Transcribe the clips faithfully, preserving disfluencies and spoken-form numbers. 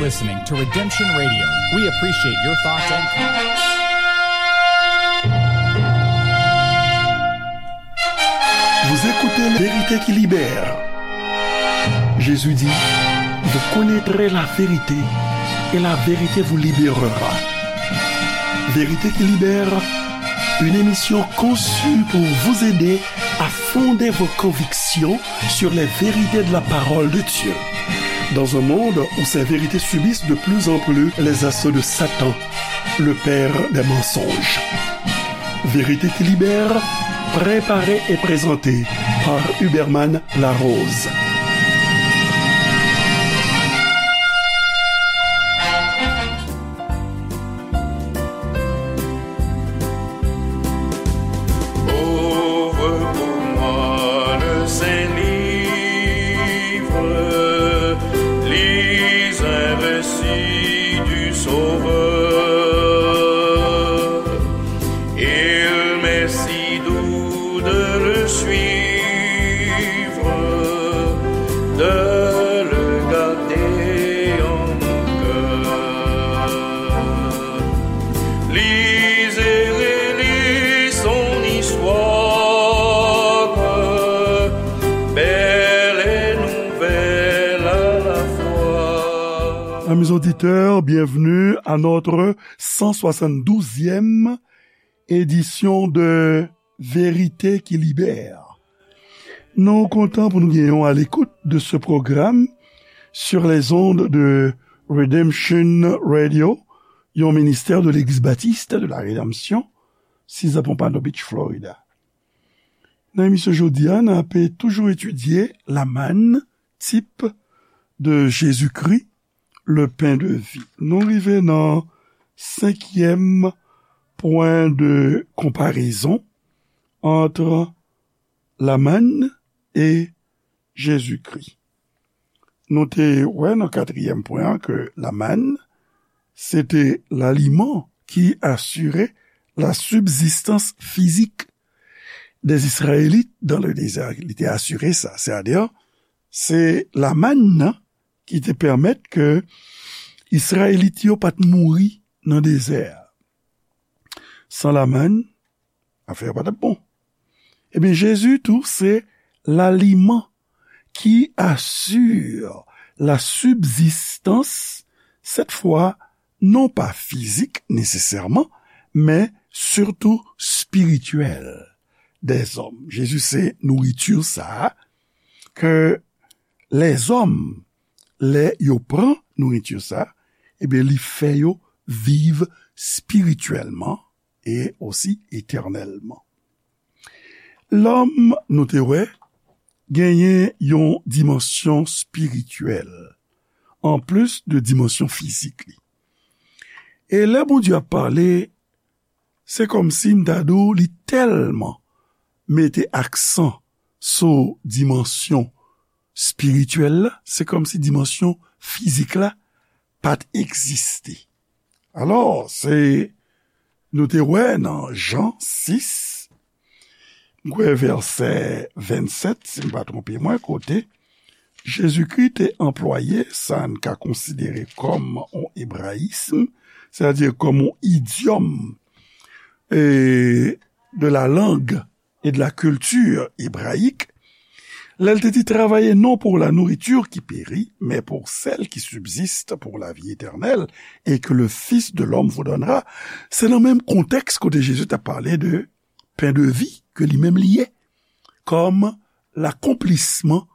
Listening to Redemption Radio. We appreciate your thoughts and comments. Vous écoutez La Vérité qui libère. Jésus dit, vous connaîtrez la vérité et la vérité vous libérera. Vérité qui libère, une émission conçue pour vous aider à fonder vos convictions sur les vérités de la parole de Dieu. Dans un monde où ces vérités subissent de plus en plus les assauts de Satan, le père des mensonges. Vérité qui libère, préparée et présentée par Huberman Larose. Ouvre pour moi le Saint-Livre, lis un récit du Sauveur. Il m'est si doux de le suivre, de le garder en mon cœur. Lis et relis son histoire, belle et nouvelle à la fois. Amis auditeurs, bienvenue à notre cent soixante-douzième édition de Vérité qui libère. Nou kontan pou nou genyen w à l'écoute de ce programme sur les ondes de Redemption Radio, yon ministè de Legliz Batis de la Redanmsyon, César Pompano Beach, Florida. Nan emisyon jodi a, n ape toujou etidye Lamann, type de Jésus-Christ, le pain de vie. Nou rive nan senkyèm pwen de konparezon entre Lamann e Jezikri. Nou te wè nan katriyèm pwen an ke lamann, se te laliman ki asire la sibzistans fizik dè Izrayelit dan le dezè. Li te asire sa. Sètadi, se lamann nan ki te pèmèt ke Izrayelit yo pa t mouri nan dezè a. San lamann, afè yo pa t ap bon. Ebyen, Jezi tou se laliman ki asire la sibzistans, sèt fwa, non pa fizik nesesèman, men sitou espirityèl dèzòm. Jezi se nouriti sa a ke lèzòm, lè yo pran nouriti sa a, ebyen, li fè yo viv espirityèlman e osi etènèlman. Lòm, nou te wè, genyen yon dimansyon espirityèl, anplis de dimansyon fizik li. E lè Bondye ap pale, se kòmsi m ta di w li tèlman mete aksan sou dimansyon espirityèl la, se kòmsi dimansyon fizik la pa t egziste. Alò, se, nou te wè nan Jan sis, m kwè vèsè vennsèt, si m pa twonpe mwen, kote Jezikri te anplwaye sa n ka konsidere kòm yon ebrayism, sètadi kòm yon idyòm, e, de la langue et de la culture hébraïque, lè l te di, travaillez non pour la nourriture qui périt, mais pour celle qui subsiste pour la vie éternelle et que le Fils de l'homme vous donnera, se nan menm kontèks kote Jezi t ap pale de pen de vi ke li menm li ye, kòm lakonplisman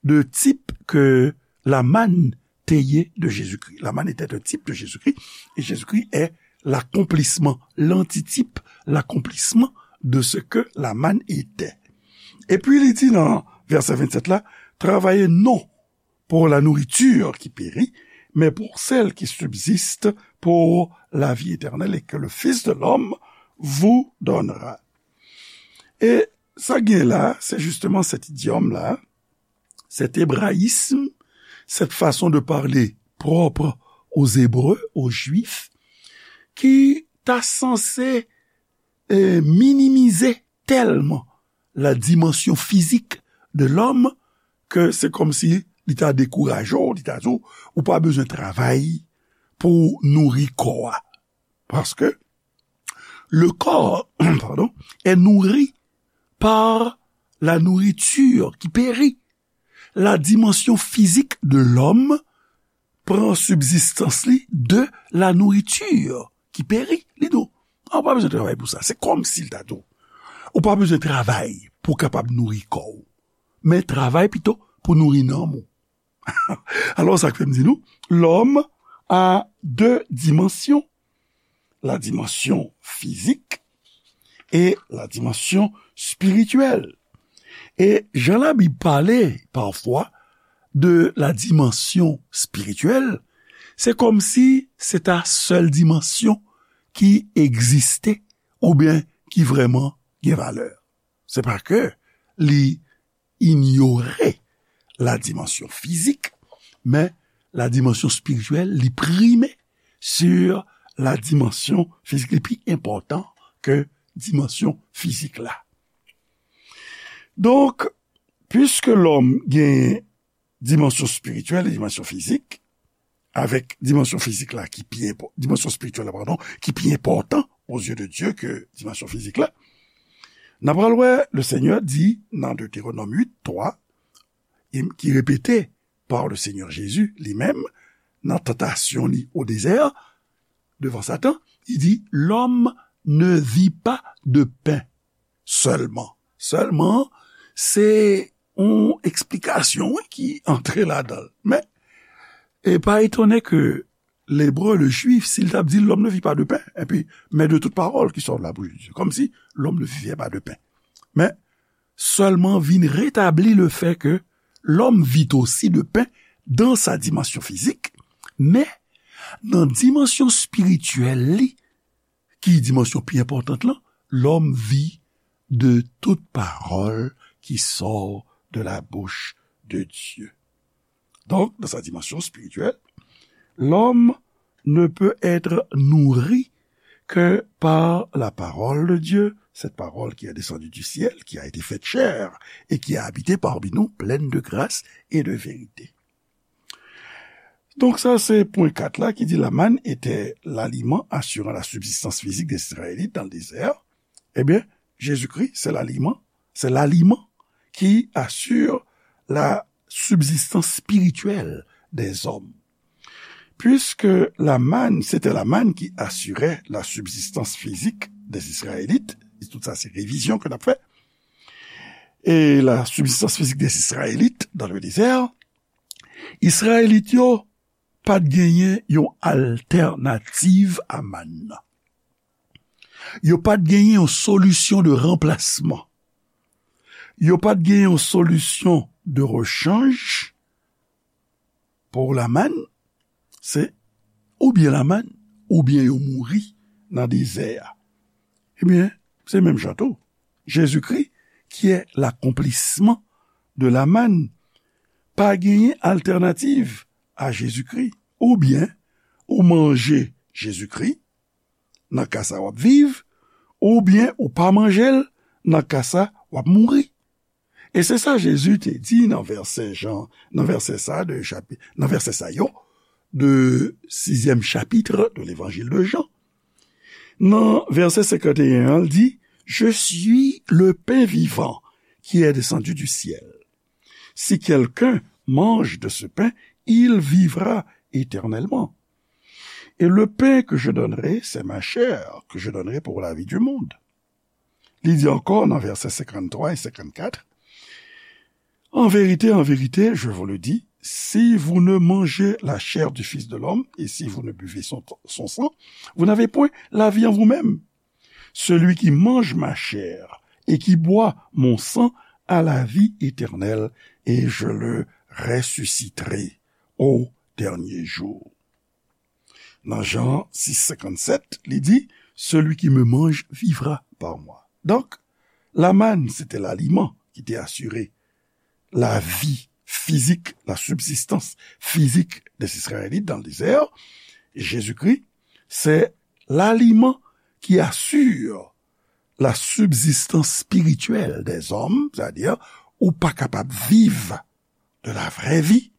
de tip ke lamann te ye de Jezikri. Lamann était un type de Jésus-Christ, et Jésus-Christ est l'accomplissement, l'antitype, l'accomplissement de ce que lamann était. Epi li di nan vèsè vennsèt la, travaillez non pour la nourriture qui périt, mais pour celle qui subsiste pour la vie éternelle et que le Fils de l'homme vous donnera. E sa gen la, se jisteman sèt idyòm la, cet hébraïsme, cette façon de parler propre aux Hébreux, aux Juifs, ki ta sanse, eh, minimize tèlman la dimansyon fizik de lòm ke se kòmsi li ta dekouraje w, li ta di w, ou pa bezwen travay pou w nouri kò a. Paske le corps, pardon, est nourri par la nourriture qui périt. La dimension physique de l'homme pran sibzistans li de la nourriture qui périt. Li di w, a, ou pa bezwen travay pou sa. Se kòmsi l ta di w, ou pa bezwen travay pou w kapab nouri kò w, men travay pito pou nouri nanm ou. Alò, sa k fè m di nou, l'homme a deux dimensions, la dimension physique et la dimension spirituelle. E jan Labib pale pafwa de la dimension spirituelle, se kòmsi se ta sèl dimansyon ki egziste oubyen ki vrèman gen valè. Se pa ke li inyore la dimansyon fizik, men la dimansyon espirityèl, li prime sur la dimansyon fizik. Li pi enpòtan ke dimansyon fizik la. Donk, piske lòm gen dimansyon espirityèl e dimansyon fizik, avèk dimansyon fizik la ki pi enpò-, dimansyon espirityèl la, padon, ki pi enpòtan aux yeux de Dieu ke dimansyon fizik la. N a pral wè, le Seigneur di nan Deutéronome huit trois, e ki repete par le Seigneur Jésus li menm, nan tantasyon li au désert, devan Satan, li di, l'homme ne vit pas de pain seulement. Sèlman, se yon eksplikasyon, wi, ki antre ladan l. Men, e pa etone ke Lebre, le Jwif, si l t ap di, l'homme ne vit pas de pain, epi, mais de toute parole qui sort de la bouche de Dieu. Kòmsi, l'homme ne vivait pas de pain. Men, sèlman vin retabli le fait que l'homme vit aussi de pain dans sa dimension physique, men nan dimansyon espirityèl li, ki dimansyon pi enpòtan lan, l'homme vit de toute parole qui sort de la bouche de Dieu. Donc, dans sa dimension spirituelle, l'homme ne peut être nourri que par la parole de Dieu, cette parole qui est descendue du ciel, qui a été faite chair et qui a habité parmi nous, pleine de grâce et de vérité. Donk sa se pwen kat la ki di la manne était l'aliment assurant la subsistance physique des Israélites dans le désert. Ebyen, Jezikri se laliman, se l'aliment qui assure la subsistance spirituelle des hommes. Puisque la manne, c'était la manne qui assurait la subsistance physique des Israélites, tout sa se revizyon ke n ap fè, et la subsistance physique des Israélites dans le désert, Izrayelit yo pa t genyen yon altènativ a mann nan. Yo pa t genyen yon solisyon de ranplasman. Yo pa t genyen yon solisyon de rechanj pou la mann. Se oubyen la mann, oubyen yo mouri nan dezè a. Ebyen, se menm jan tou. Jezikri, qui est l'accomplissement de la manne, pa genyen altènativ a Jezikri. Oubyen ou manje Jezikri, nan ka sa w ap viv, oubyen ou pa manje l, nan ka sa w ap mouri. E se sa Jezi te di nan vèsè Jan, nan vèsè sa de chapi-, nan vèsè sa yo de sizyèm chapit de levanjil de Jan. Nan vèsè senkant e en an, l di, Je suis le pain vivant qui est descendu du ciel. Si quelqu'un mange de ce pain, il vivra éternellement. Et le pain que je donnerai, c'est ma chair que je donnerai pour la vie du monde. Li di ankò nan vèsè senkanntwa e senkannkat, En vérité, en vérité, je vous le dis, si vous ne mangez la chair du Fils de l'homme et si vous ne buvez son, son sang, vous n'avez point la vie en vous-même. Celui qui mange ma chair et qui boit mon sang a la vie éternelle, et je le ressusciterai au dernier jour. Nan Jan sis senkannsèt, li di, Celui qui me mange vivra par moi. Donk, la manne, se te laliman ki te asire lavi fizik, la subsistance physique des Israélites dans le désert. Jésus-Christ, c'est l'aliment qui assure la subsistance spirituelle des hommes, c'est-à-dire, ou pa kapab viv de la vraie vie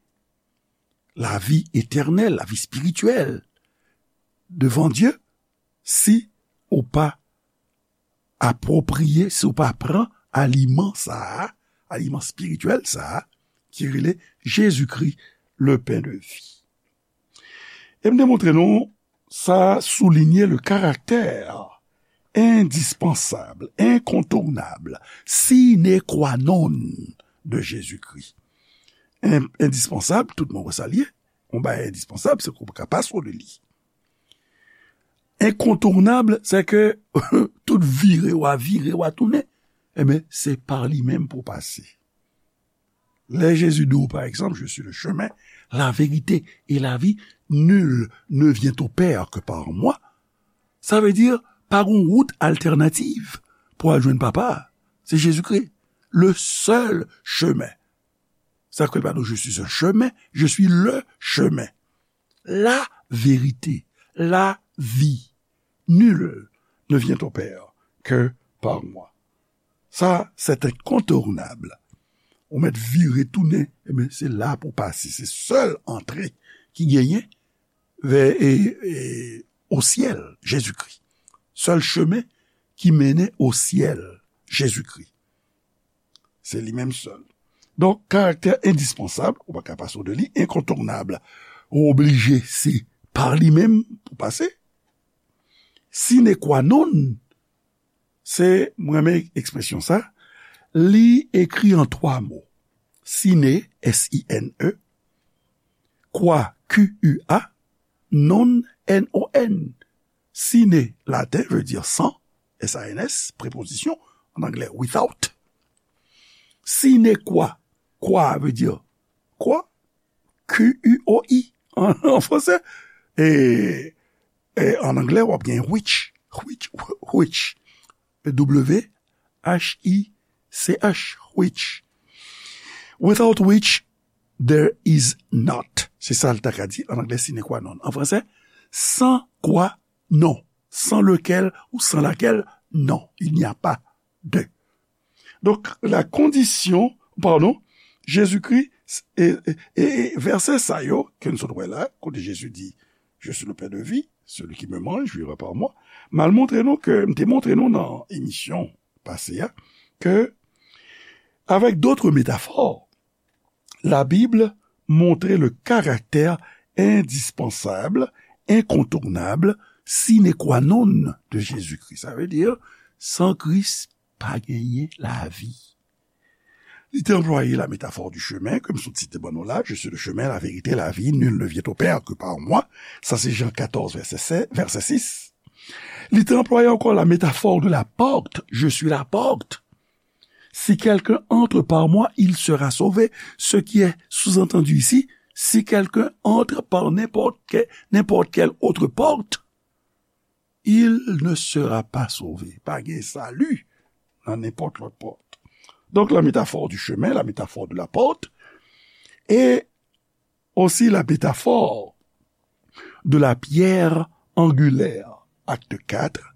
lavi etènèl, lavi espirityèl devan Dye, si ou pa apwopriye, si ou pa pran aliman sa a, aliman espirityèl sa a, ki rele Jezikri, le pen de vi. E m te montre nou, sa soulinye le karaktè endispansab, enkontounab, sine qua non de Jezikri. En-, endispansab, tout moun wè sa l ye. Yon bagay endispansab, se ke w pa ka pase de li. Enkontounab, se ke tout vire w a vire w a tounen, ebyen, se pa li menm pou w pase. Lè Jezi di w, pa egzanp, je suis le chemin, la vérité et la vie, nul ne vient au Père que par moi, sa vle di, pa gen wout altènativ pou al jwenn Papa a. Se Jezikri, le seul chemin. Sa ke l pa di w, je suis un chemin, je suis le chemin. La vérité, la vie, nul ne vient au Père que par moi. Sa, c'est incontournable. Ou mèt vire tounen, ebyen, se la pou pase. Se sèl antre ki genyen vè, e, e, o syèl, Jezikri. Sèl chemen ki mennen o syèl, Jezikri. Se li menm sèl. Donk, karaktè endispansab, ou pa ka pase de li, enkontounab, ou oblije, se pa li menm pou pase. Sine qua non, se, mwen renmen ekspresyon sa, li ekri an twa mo. Sine, S I N E, qua, Q U A, non, N O N. Sine, laten, vle di san, S A N S, prepozisyon, an anglè, without. Sine qua, qua vle di kwa, Q U O I, an, an fransè. E, e an anglè, w ap gen which, which, which, W H I C H, which. Without which, there is not. Se sa l ta ka di an anglè, sine qua non. An fransè, sans quoi non. Sans lequel ou sans laquelle, non. Il n'y a pas de. Donk, la kondisyon, padon, Jezikri, e, e, e, e vèsè sa yo, ke n sot wè la, kote Jezi di, je suis le pain de vie, celui qui me mange vivra par moi, m al montre nou ke, m te montre nou nan emisyon pase a, ke, avec d'autres métaphores, la Bible montre le caractère indispensable, incontournable, sine qua non de Jésus-Christ. Sa vle di, san Kris, pa genyen lavi. Li te anplwaye la métaphore du chemin, ke m sot site ban nou la, je suis le chemin, la vérité, la vie, nul ne vient au Père que par moi. Sa se Jan katòz, vèsè sèz, vèsè sis. Li te anplwaye ankò la métaphore de la porte, je suis la porte. Si quelqu'un entre par moi, il sera sauvé. Ce qui est sous-entendu ici, si quelqu'un entre par n'importe que-, n'importe quelle autre porte, il ne sera pas sauvé. Pa gen sali nan nenpòt lòt pòt. Donk, la métaphore du chemin, la métaphore de la porte, et aussi la métaphore de la pierre angulaire. Acte quatre,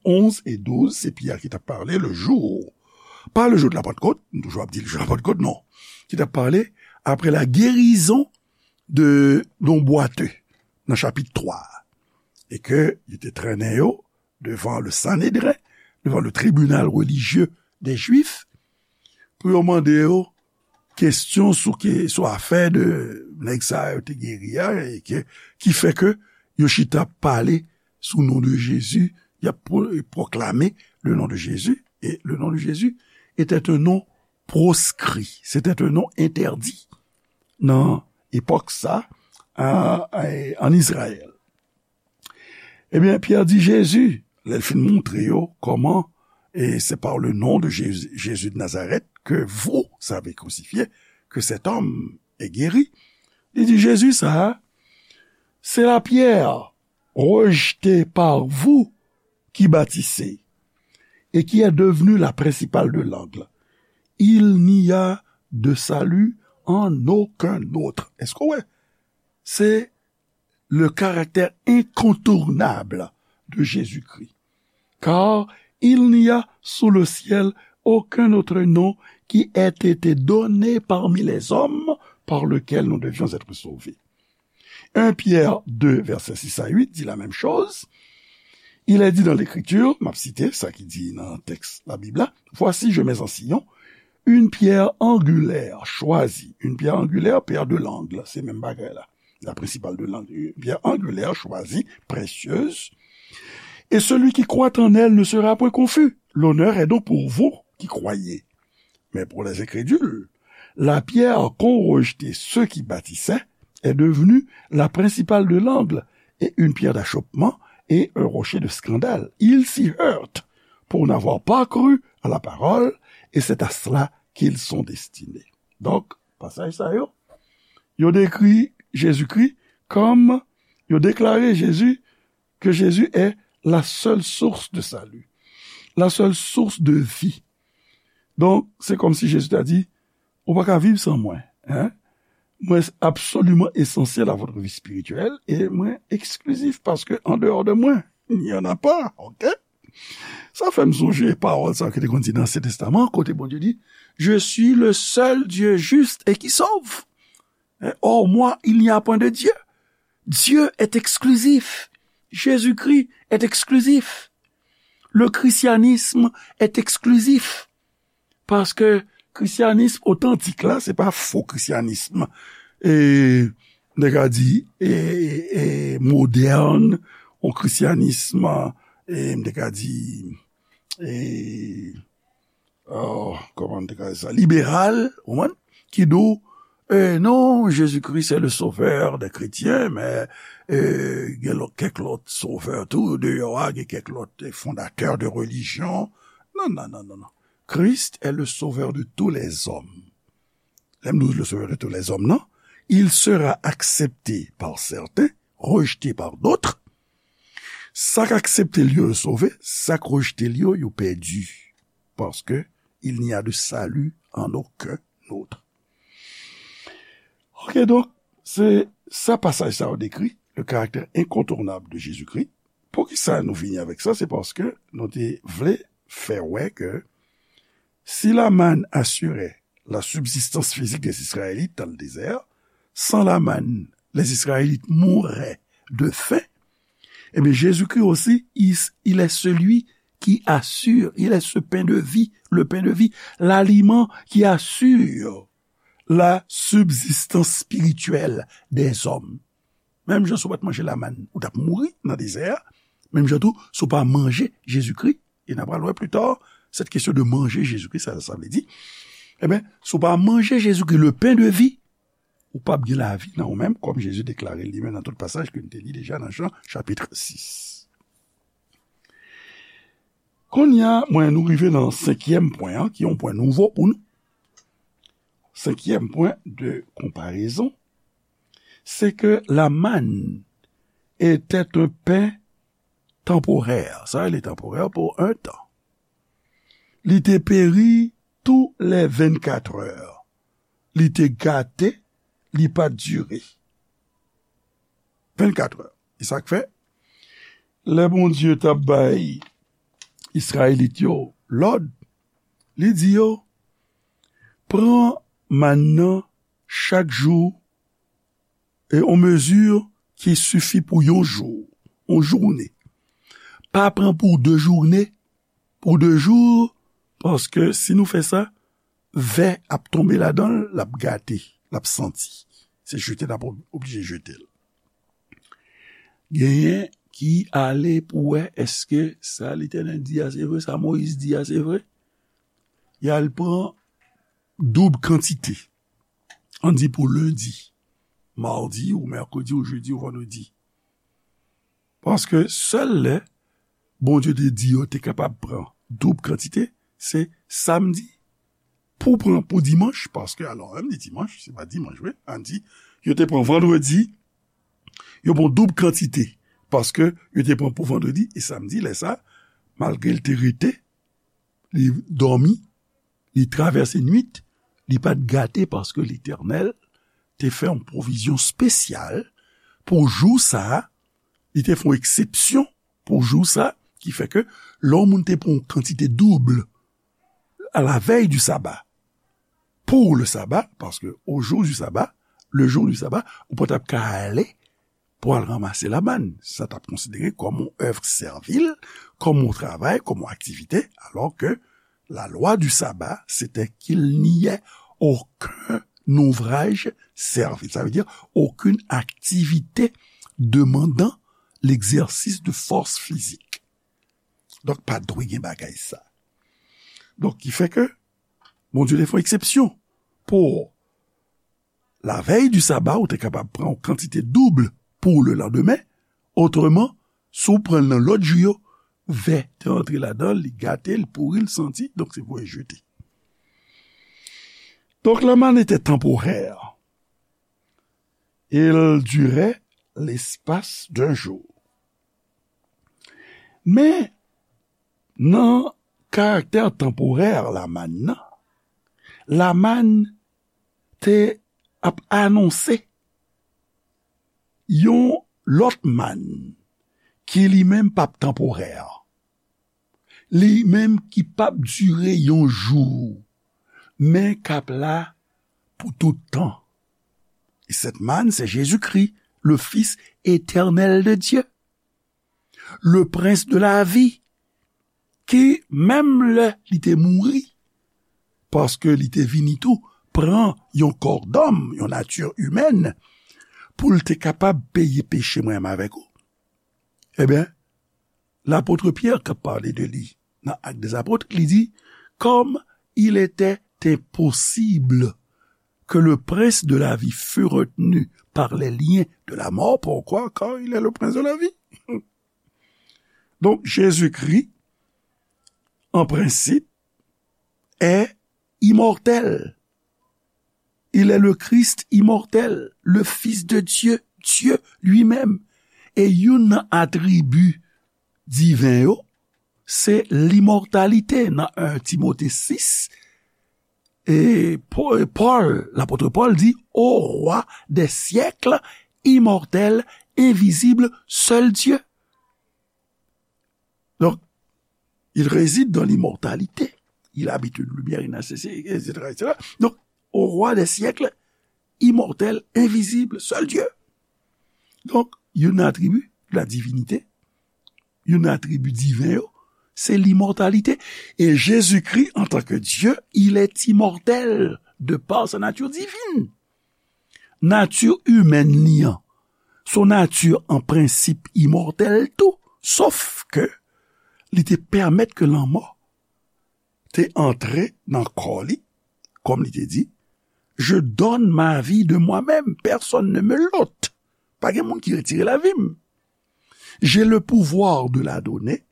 onze et douze, se Pyè ki t ap pale, le jour, pas le jour de la Pentecôte, nou toujou ap di le jour de la Pentecôte, non, ki t ap pale après la guérison de, d'un boiteux, nan chapit twa, e ke yo te trennen yo devan le Sanhédrin, devan le tribunal religieux des Juifs, pou yo mande yo kesyon sou ke, sou afè de nèg sa yo te geri a, e ke, ki fè ke yo chita ap pale sou non de Jezi, y ap pro-, pwoklame le nom de Jésus, et le nom de Jésus était un nom proscrit, c'était un nom interdit nan epòk sa, a, a, an Izrayèl. Ebyen, Pyè di Jezi, lè l fin montre yo kòman, et c'est par le nom de Jésus, Jésus de Nazareth, que vous avez crucifié, que cet homme est guéri. Li di, Jezi sa a, se la pierre rejetée par vous qui bâtissez et qui est devenue la principale de l'angle. Il n'y a de salut en aucun autre. Èske w wè? Se le caractère incontournable de Jésus-Christ. Car il n'y a sous le ciel aucun autre nom qui ait été donné parmi les hommes par lequel nous devions être sauvés. Un Pierre deux, versets six à huit, dit la même chose. Il est dit dans l'Écriture, m ap site sa ki di nan tèks Labib la, Voici, je mets en Sion une pierre angulaire choisie. Une pierre angulaire, pierre de l'angle, se menm bagay la. La principale de l'angle, une pierre angulaire choisie, précieuse. Et celui qui croit en elle ne sera point confus. L'honneur est donc pour vous qui croyez. Mais pour les incrédules, la pierre qu'ont rejetée ceux qui bâtissaient est devenue la principale de l'angle et une pierre d'achoppement et un rocher de scandale. Ils s'y heurtent pour n'avoir pas cru à la parole, et c'est à cela qu'ils sont destinés. Donk, pasaj sa yo, yo dekri Jezikri kòm, yo deklare Jezi, que Jésus est la seule source de salut, la seule source de vie. Donk, se kòmsi Jezi ta di, ou pa ka viv san mwen, hein? Mwen absoliman esansyèl à votre vie spirituelle, e mwen eksklizif, paske an deyò de mwen, il n'y en a pas, ok? Sa fè m sonje pawòl sa ki te konn di nan Ansyen Testaman, kote Bondye di, Je suis le seul Dieu juste et qui sauve. Hors moi, il n'y a point de Dieu. Dieu est exclusif. Jésus-Christ est exclusif. Le christianisme est exclusif. Paske kristyanism otantik la, se pa fo kristyanism, e, m te ka di, e, e, modèn, yon kristyanism, e, m te ka di, e, oh, kòman m te ka di sa, liberal, ou konprann? Ki di w, e, non, Jésus-Christ est le sauveur des chrétiens, men, e, gen lòt, kèk lòt sovè tou, deyò a, gen kèk lòt, e, fondatè de religion. Non, non, non, non, non. Christ est le sauveur de tous les hommes. Lè m di w le sauveur de tous les hommes, non? Il sera accepté par certains, rejeté par d'autres. Sa k aksepte l yo, yo sove, sa k rejte l yo, yo pèdi. Parce que il n'y a de salut en aucun autre. Ok, donk, se sa pasaj sa yo dekri, le caractère incontournable de Jésus-Christ. Poukisa nou vini avèk sa? Se paske nou te vle fè wè ke si la manne assurait la subsistance physique des Israélites dans le désert, sans la manne, les Israélites mouraient de faim. Eh bien, Jésus-Christ aussi, il, il est celui qui assure, il est ce pain de vie, le pain de vie, l'aliment qui assure la subsistance spirituelle des hommes. Menm jan si w pa t manje lamann, ou t ap mouri nan dezè a. Menm jan tou, si w pa manje Jezikri, e n a pral wè pli ta, cette question de manger Jésus-Christ, sa sa vle di. Ebyen, si w pa manje Jezikri, le pain de vie, ou p ap gen lavi nan ou menm, kòm Jezi deklare li menm nan tout pasaj ke n te li deja nan Jan, chapit sis. Kounye a, mwen, nou rive nan senkyèm pwen an, ki yon pwen nouvo pou nou. Senkyèm pwen de konparezon, se ke la manne était un pain temporaire. Sa vle temporaire pou yon tan. Li te peri tou lè vennkat è. Li te gate, li pa t dire. Vennkat è. E sa k fè, lè Bondye t ap bay Izrayelit yo lòd, li di yo, pran mann nan chak jou, e yon mezi ki sifi pou yon jou, yon jounen. Pa pran pou de jounen, pou de jou, paske si nou fè sa, vè ap tonbe ladan l, l ap gate, l ap santi. Se jete n ap oblije jete l. Genyen ki ale pou wè èske sa Letènèl di a se vre, sa Moyiz di a se vre. Y al pran doub kantite. Ann di pou lendi, madi ou mèkredi ou jedi ou vandredi. Paske sèl lè Bondye te di yo te kapab pran doub kantite, se samdi. Pou pran pou dimanch, paske alò, menm di dimanch, se pa dimanch vre, ann di, yo te pran vandredi, yo pran doub kantite, paske yo te pran pou vandredi e samdi, lè sa, malgre l te rete, li dòmi, li travèse nwit, li pa t gate paske Letènèl te fè yon pwovizyon espesyal pou jou sa a, li te fè yon eksepsyon pou jou sa, ki fè ke lè yon moun te pran yon kantite doub à la veille du sabbat, pour le sabbat, parce que au jour du sabbat, le jour du sabbat, ou pa t ap ka ale pou al ranmase lamann. Sa t ap konsidere kòm yon èv sèvil, kòm yon travay, kòm yon aktivite, alò ke la loi du sabbat, c'était qu'il n'y ait aucun ouvrage servile. Ça veut dire aucune activité demandant l'exercice de force physique. Donk, pa dwe gen bagay sa. Donk, ki fè ke Bondye te fè yon eksepsyon pou lavèy di saba, ou te kapab pran yon kantite doub pou lelandemen. Otreman, si w pran l nan lòt jou yo, vè te antre ladan l, li gate, li pouri, li santi, donk se pou jete. Donc, la manne était temporaire. Il durait l'espace d'un jour. Men, nan karaktè tanporè lamann nan, lamann te ap anonse yon lòt mann ki li menm p ap tanporè. Li menm ki p ap dire yon jou, men k ap la pou tout tan. E sèt mann, se Jezikri, le Fils éternel de Dieu, le Prince de la vie, ki, menm lè li te mouri, paske li te vini tou pran yon kò dòm, yon nati imèn, pou l te kapab peye peche mwen menm avèk ou. Ebyen, lapot Pyè k ap pale de li nan Actes des Apôtres, li di, comme il était impossible que le prince de la vie fût retenu par les liens de la mort. Pourquoi? Car il est le prince de la vie. Donc, Jésus-Christ, en principe, est immortel. Il est le Christ immortel, le Fils de Dieu, Dieu lui-même. E youn nan atribi diven yo, se limòtalite nan un Timote sis. E Pò-, Pòl, lapot Pòl di, au roi des siècles, immortel, invisible, seul Dieu. Donc, il réside dans l'immortalité. Il habite une lumière inaccessible, et cetera, et cetera. Donc, au roi des siècles, immortel, invisible, seul Dieu. Donc, youn nan atribi la divinité, youn nan atribi diven yo, se limòtalite. E Jezikri, antanke Dye, il est immortel de par sa nature divine. Nati imèn li an, se yon nati an prensip imòtèl tou, sof ke li te pèmèt ke lanmò te antre nan kò li, kòm li te di, Je donne ma vie de moi-même, personne ne me l'ôte. Pa gen moun ki retire lavi m. J'ai le pouvoir de la donner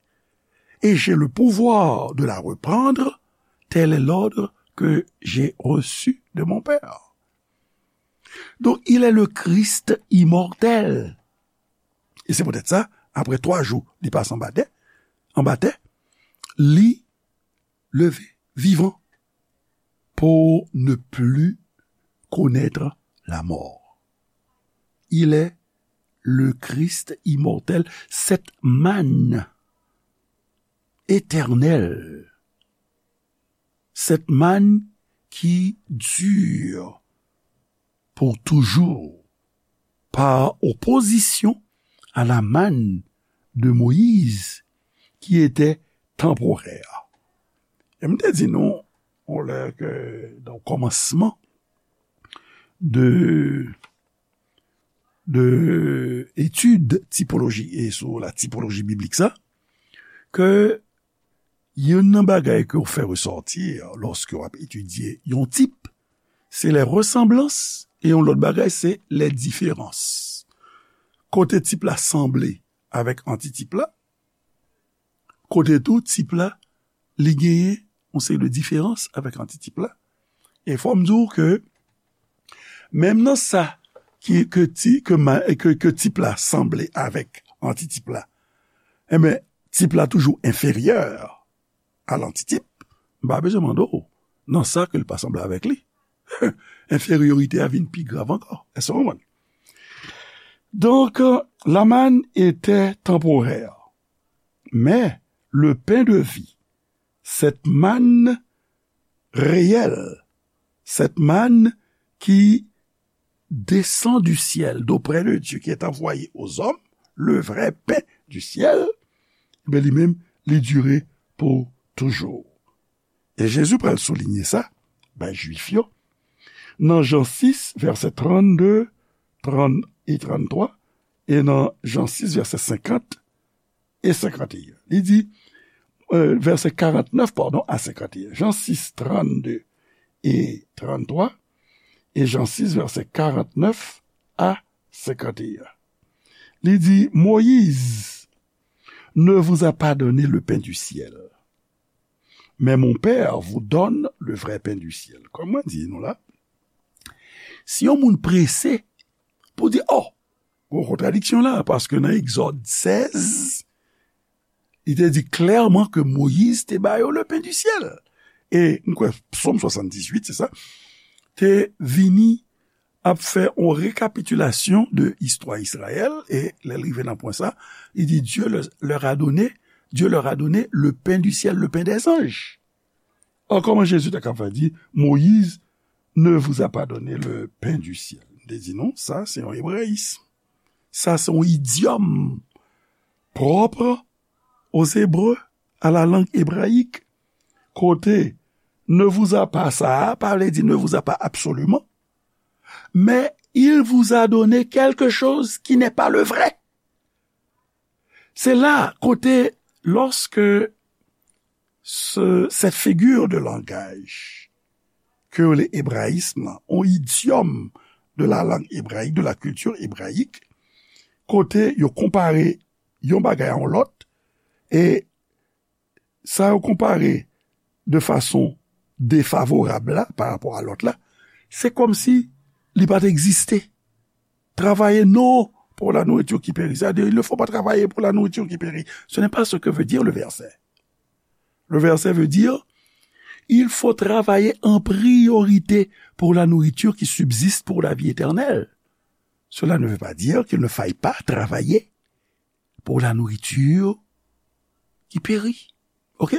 et j'ai le pouvoir de la reprendre, tel est l'ordre que j'ai reçu de mon Père. Donc, il est le Christ immortel. E se poutèt sa, apre twa jou, li pase anba tè, anba tè, li leve vivan pour ne plus connaître la mort. Il est le Christ immortel, cette manne éternelle, cette manne qui dure pour toujours, par opposition à la manne de Moïse, qui était temporaire. E m te di nou, on lè ke, nan kòmansman de, de etid tipoloji e sou la tipoloji biblik sa, ke youn nan bagay ke w fè resòti lòske w ap etidye yon tip, se les ressemblances, e yon lòt bagay, se les différences. Kote tip la sanble avèk antitip la, kote tou tip la, li genyen yon seri de diferans avèk antitip la. E fò m di w ke, menm nan sa ki, ke ti, ke ma-, ke, ke tip la sanble avèk antitip la, enben, tip la toujou enferyè a lantitip, m pa bezwen mande w nan sa ke l pa sanble avèk li. Enferyorite a vin pi grav ankò. Èske w konprann? Donc, euh, la manne était temporaire, mais le pain de vie, cette manne réelle, cette manne qui descend du ciel d'auprès de Dieu, qui est envoyé aux hommes, le vrai pain du ciel, ben, li menm, li dire pou toujou. E Jezi pral soulinye sa bay Jwif yo nan Jan sis, vèsè trannde, trant e tranntwa, e nan Jan sis, vèsè senkant e senkant e en. Li di, euh, vèsè karantnèf, padon, a senkant e en. Jan sis, trannde e tranntwa, e Jan sis, vèsè karantnèf a senkant e en. Li di, Moïse ne vous a pas donné le pain du ciel, mais mon Père vous donne le vrai pain du ciel. Kòm mwen di nou la, si yon moun prese pou di, oh, gon kontradiksyon la, paske nan Egzòd sèz, li te di klèman ke Moyiz te ba yo le pain du ciel. E m kwè Sòm swasanndizuit, se sa, te vini ap fè yon rekapitilasyon de istwa Izrayèl, e lè l rive nan pwen sa, li di, Dieu leur, leur a donné, Dieu leur a donné le pain du ciel, le pain des anges. Or, kòman Jezi ta kapab di, Moïse ne vous a pas donné le pain du ciel? M te di nou, sa se yon ebrayis. Sa se yon idyòm propre aux Hébreux, à la langue hébraïque. Kote ne vous a pas sa a, pa vle di ne vous a pas absolument, mais il vous a donné quelque chose qui n'est pas le vrai. Se la kote, lorsque ce, cette figure de langage ke yo rele ebrayism lan, yon idyòm de la langue hébraïque, de la culture hébraïque, kote yo konpare yon bagay a yon lòt, e sa yo konpare de fason defavorab la, pa rapò a lòt la, se kòmsi li pa t egziste. Travailler non pour la nourriture qui périt. C'est-à-dire, il ne faut pas travailler pour la nourriture qui périt. Ce n'est pas ce que veut dire le verset. Le verset veut dire, il faut travailler en priorité pour la nourriture qui subsiste pour la vie éternelle. Cela ne veut pas dire qu'il ne faille pas travailler pour la nourriture qui périt. OK?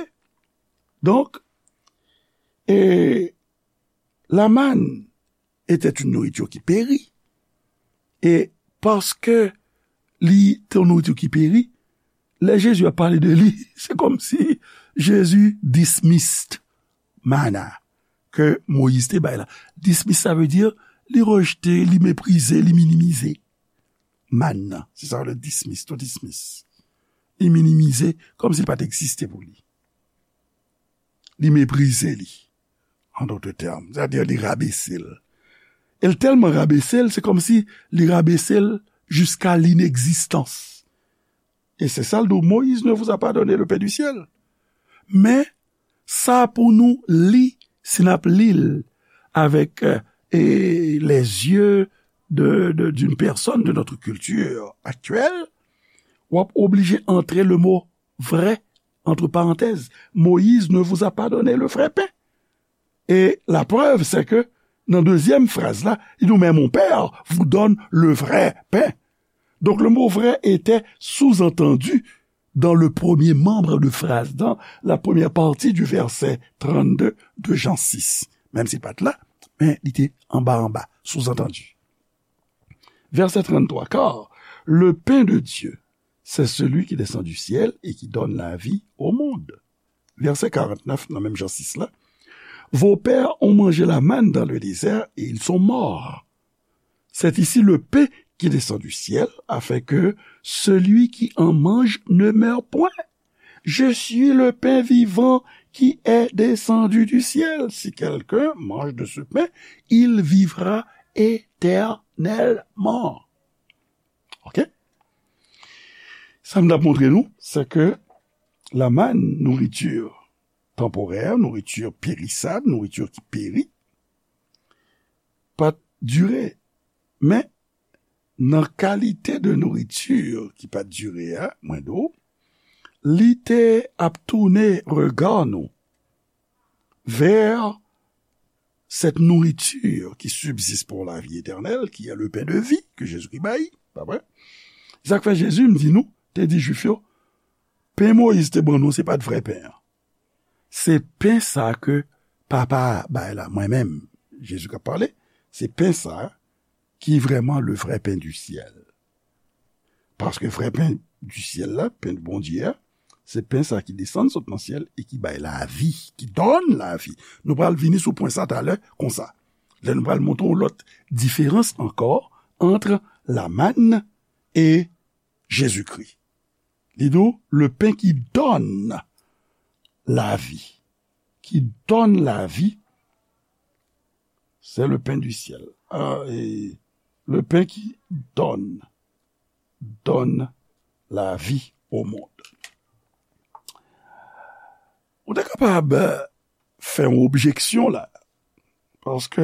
Donc, et la manne était une nourriture qui périt. E paske li te yon nouriti ki peri, lè Jezi ap pale de li, se kòmsi Jezi dismissed mana ke Moyiz te bay la. Dismiss, sa vle di li rejte, li meprize, li minimize. Manna, se sa le dismiss, to dismiss. Li minimize, kòmsi li pa t egziste pou li. Li meprize li. An dòt tèm, sètadi li rabese l. E l tèlman rabese l, se kòmsi li rabese l jiska linegzistans. E se sa l di, Moïse ne vous a pas donné le pain du ciel. Men, sa pou nou li, si n ap li l avèk, euh, e, les yeux de, de, d'une personne de notre culture actuelle, w ap oblije antre le mo vrai, entre parenthèses, Moïse ne vous a pas donné le vrai pain. Et la preuve, c'est que nan dezyèm fraz la, li di, mais mon Père vous donne le vrai pain. Donc le mot vrai était sous-entendu dans le premier membre de phrase, dans la première partie du verset trente-deux de Jean six. Menm si l pa t la, men li te anba anba, sous-entendu. Verset trente-trois, car le pain de Dieu, c'est celui qui descend du ciel et qui donne la vie au monde. Verset quarante-neuf, nan menm Jan sis la, vos pères ont mangé la manne dans le désert et ils sont morts. C'est ici le pain qui descend du ciel, afin que celui qui en mange ne meure point. Je suis le pain vivant qui est descendu du ciel. Si quelqu'un mange de ce pain, il vivra éternellement. OK? Sa m t ap montre nou, se ke la manne, nourriture temporaire, nourriture périssable, nourriture ki peri, pa t dire. Men, nan kalite de nourriture ki pa t dire a, mwen di w, li te ap tounen rega nou vers cette nourriture qui subsiste pour la vie éternelle, qui est le pain de vie que Jésus-Christ bay, pa vre? Sa k fè Jezi, m di nou, te di Jwif yo, pen Moyiz te ban nou, se pa t vrè pen an. Se pen sa ke Papa a bay la, mwen menm, Jezi k ap pale, se pen sa ki vrèman le vrai pain du ciel. Paske vrè pen di syèl la, pen Bondye a, se pen sa ki desann sot nan syèl e ki bay lavi, qui donne la vie. Nou pral vini sou pwen sa talè konsa. Lè nou pral montre yon lòt diferans ankò entre la manne et Jésus-Christ. Li di w, le pain qui donne la vie, qui donne la vie, c'est le pain du ciel. Ah, et le pain qui donne, donne la vie au monde. Ou te kapab fè yon objeksyon la, paske,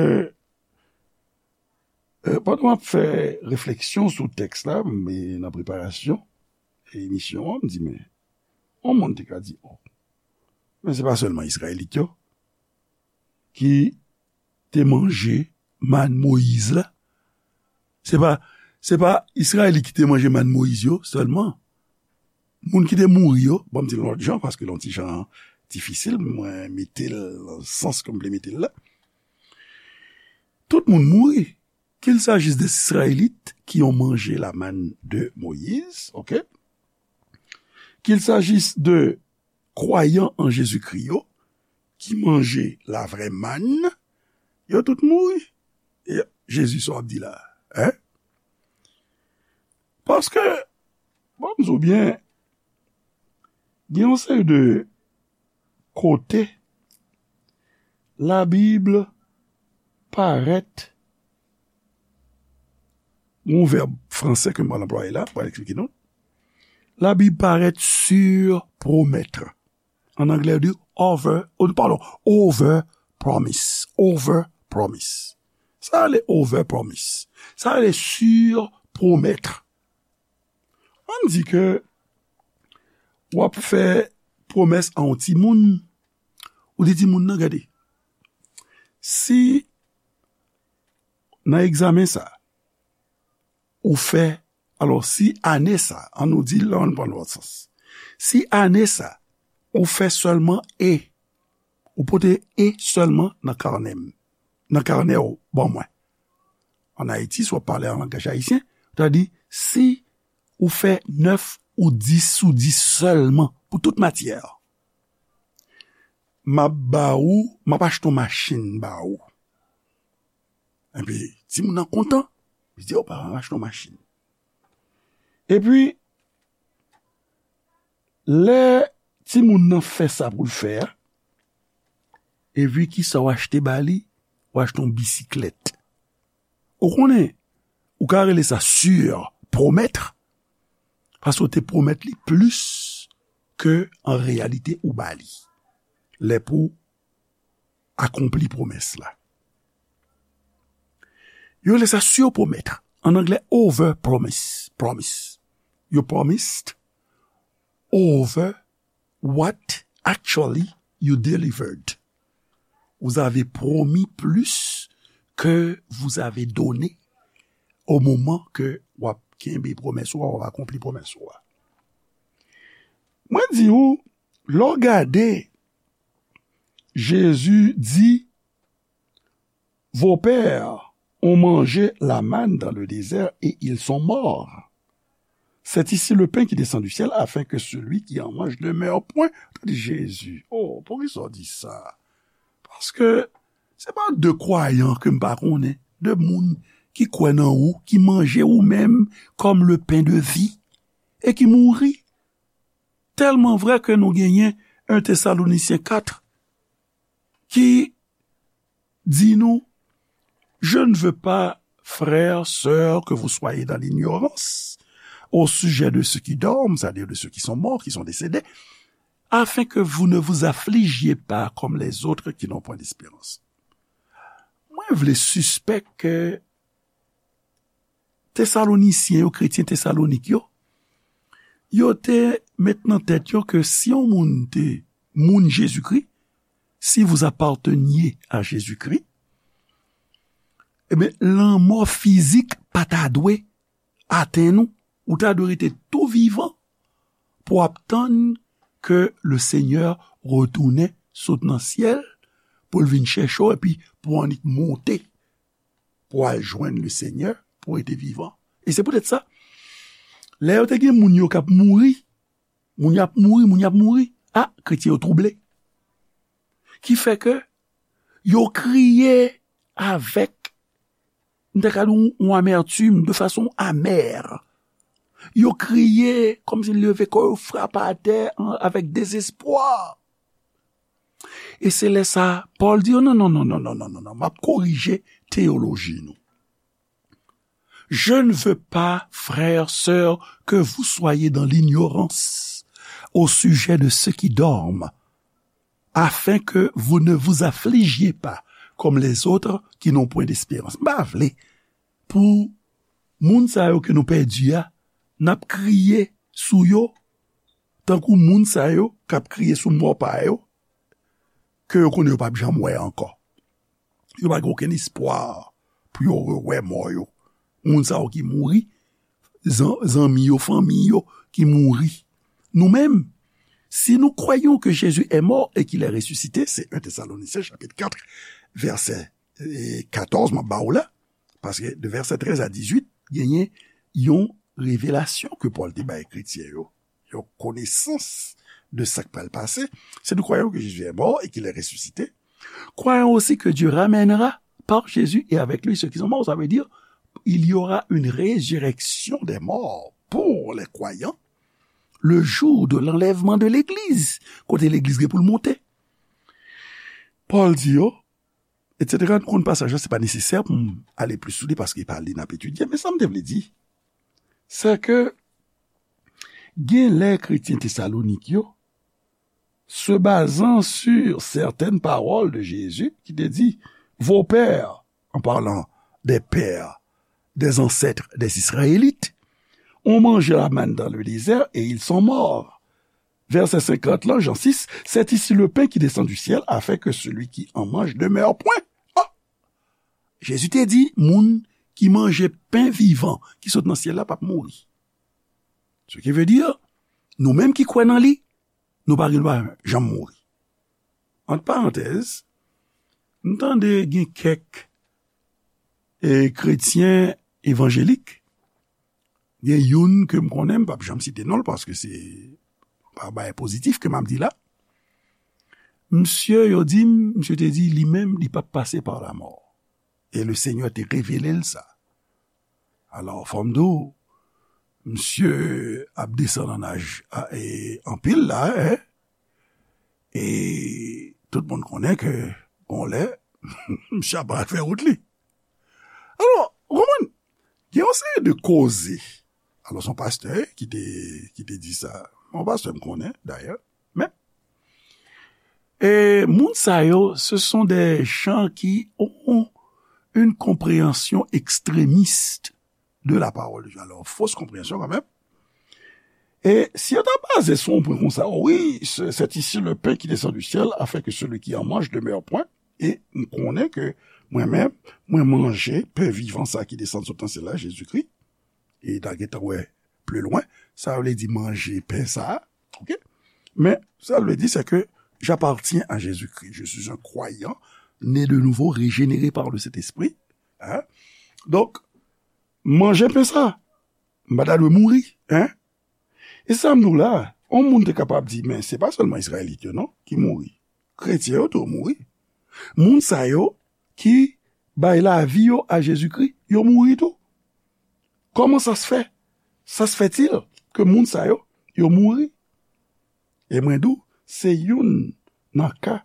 euh, pandan m ap fè refleksyon sou tèks la, men nan preparasyon emisyon an, m di, men, yon moun te ka di, oh, men se pa sèlman Izrayelit yo ki te manje mann Moyiz la. Se pa, se pa Izrayelit ki te manje mann Moyiz yo sèlman. Moun ki te mouri yo, ban m di l yon lòt jan, paske l yon ti jan difisil, mwen mete l nan sans ke m vle mete l la. Tout moun mouri, qu'il s'agisse des Israélites qui ont mangé la manne de Moïse, ok? Qu'il s'agisse de kwayan an Jezikri yo, ki manje la vraie manne, yo tout mouri. E Jezi, sa w ap di la, hein? Paske, bon, m di w byen, gen yon seri de kote Labib parèt, yon vèb fransè ke m pral anplwaye la, pral eksplike nou. Labib parèt surpromettre. An anglè, yo di over, oh, pardon, over promise. Over promise. Sa rele over promise. Sa rele surpromettre. Ann di ke w ap fè pwomès a yon timoun, ou di timoun nan, gade, si nan egzamen sa, ou fè, alò, si ane sa, ann nou di, la, ann pran lòt sans. Si ane sa, ou fè sèlman E, ou pote E sèlman nan kanè m, nan kanè w ban mwen. Ann Ayiti, si w ap pale an langaj ayisyen, ou ta di, si ou fè nèf ou dis sou dis sèlman pou tout matyè, m ap ba ou, m ap achte yon machin ba ou. Epi, timoun nan kontan, li di, o, papa, m ap achte yon machin. Epi, lè timoun nan fè sa pou l fè a, epi kisa w achte ba li? W achte yon bisiklèt. Ou konnen, ou ka rele sa surpromettre, paske w te pwomèt li plis ke an reyalite ou ba li. Lè pou akonpli pwomès la. Yo rele sa surpromettre. An anglè, over promise. Promise. You promised over what actually you delivered. Vous avez promis plus que vous avez donné au moment que w ap kenbe pwomès ou a, w ap akonpli pwomès ou a. Mwen di ou, lè w gade, Jezi di, vos pères ont mangé la manne dans le désert et ils sont morts. C'est ici le pain qui descend du ciel afin que celui qui en mange ne meure point. Tande Jezi. Oh, poukisa w di sa? Paske se pa de kwayan ke m pa konnen, de moun ki kwè nan ou, ki manje ou menm comme le pain de vie, e ki mouri. Tèlman vrè ke nou genyen un Thessaloniciens quatre ki di nou, je ne veux pas, frères, sœurs, que vous soyez dans l'ignorance au sujet de ceux qui dorment, c'est-à-dire de ceux qui sont morts, qui sont décédés, afin que vous ne vous affligiez pas comme les autres qui n'ont point d'espérance. Mwen vle sispèk ke Tesalonisyen yo, kretyen Tesalonik yo, yo te met nan tèt yo ke si yon moun te moun Jezikri, si vous apparteniez à Jésus-Christ, ebyen, lanmò fizik pa ta dwe atenn ou. Ou ta dwe rete tou vivan pou w ap tann ke le Senyè retounen sot nan syèl, pou l vin chèche w, epi pou w annik monte pou w al jwenn le Senyè, pou rete vivan. E se poutèt sa, lè yo te gen moun yo k ap mouri, moun y ap mouri, moun y ap mouri, a, kretyen yo twouble. Ki fè ke yo kriye avèk, m ta ka di, yon amètim, de fason amè. Yo kriye kòmsi leve kò yo, frape atè an, avèk dezespwa. E se lè sa, Pòl di yo, non, non, non, non, non, non, non, non, m ap korije teyoloji nou. Je ne veux pas, frères, sœurs, que vous soyez dans l'ignorance au sujet de ceux qui dorment, afin que vous ne vous affligiez pas comme les autres qui n'ont point d'espérance. M pa vle pou moun sa yo ke nou pèdi a, n ap kriye sou yo, tankou moun sa yo k ap kriye sou mò pa yo, ke yo konnen yo p ap janm wè ankò. Yo pa gen okenn espwa pou yo rewè mò yo. Moun sa yo ki mouri, zan-, zanmi yo, fanmi yo ki mouri. Nou menm, si nous croyons que Jésus est mort et qu'il est ressuscité, c'est un Thessaloniciens chapitre quatre, verset, eh, quatorze, m ap ba w la, paske de verset treize à dix-huit, genyen yon revelasyon ke Pòl te bay kretyen yo, yon konesans de sa k pral pase. Si nous croyons que Jésus est mort et qu'il est ressuscité, croyons aussi que Dieu ramènera par Jésus et avec lui ceux qui sont morts. Ça veut dire, il y aura une résurrection des morts pour les croyants le jour de l'enlèvement de l'Église, kote legliz gen pou l monte. Pòl di yo, et cetera. Nou konn pasaj la, se pa nesesè pou m ale plis sou li paske e pa li n ap etidye. Men sa m te vle di, se ke gen lè kretyen Tesalonik yo, se bazan sur certaines paroles de Jésus ki te di, vos pères, en parlant des pères, des ancêtres des Israélites, ont mangé la manne dans le désert et ils sont morts. Vèsè senkant lan, Jan sis, c'est ici le pain qui descend du ciel, afin que celui qui en mange demeure point. Oh! Jezi te di, moun ki manje pen vivan ki sot nan syèl la p ap mouri. Ce qui veut dire, nou menm ki kwè nan li, nou pa gen dwa janm mouri. Ant parantèz, m tande gen kèk, e, kretyen evanjelik, gen youn ke m konnen, m p ap janm site non l paske se pa bagay pozitif ke m ap di la. Misye, yo di m, misye te di li menm, li p ap pase pa lamò. E le Senyè te revele l sa. Alò, fò m di w, misye ap desann an aj, a, e, anpil la, en. E tout moun konnen ke, gon lè, misye ap al fè wout li. Alò, ou konprann? Gen yon seri de koze. Alò, se yon pastè ki te, ki te di sa. Yon pastè m konnen, dayè. Men, e moun sa yo, ce sont des gens qui ont une compréhension extrémiste de la parole de Dieu. Alors, fausse compréhension quand même. Et si on t'a basé sur un point comme ça, oh oui, c'est c'est ici le pain qui descend du ciel, afin que celui qui en mange demeure point. E m konnen ke mwen menm, mwen manje pen vivan sa ki desann sot nan syèl la, Jezikri. E n a gentan wè pli lwen, sa vle di manje pen sa, ok? Men sa vle di, c'est que j'appartiens à Jésus-Christ. Je suis un croyant, né de nouveau, régénéré par le Saint-Esprit. Hein? Donk, manje pen sa, m pa ta dwe mouri, hein? E sa m di w la, yon moun te kapab di, men se pa sèlman Izrayelit yo non ki mouri. Kretyen yo tou mouri. Moun sa yo ki bay lavi yo a Jezikri, yo mouri tou. Kòman sa se fè? Sa se fètil ke moun sa yo, yo mouri. E mwen di w, se youn nan ka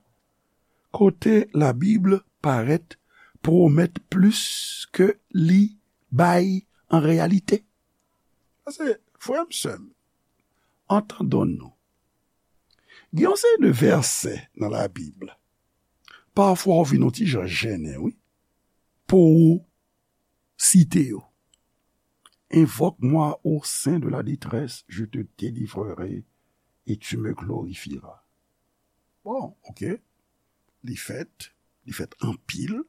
kote Labib parèt pwomèt plis ke li bay an reyalite. Paske, frè m, sè m, antandon nou. Gen yon seri de vèsè nan Labib, pafwa w vin yon ti jan jennen, wi, pou w site yo. Invoque-moi au sein de la détresse, je te délivrerai et tu me glorifieras. Bon, ok. Li fèt, li fèt anpil.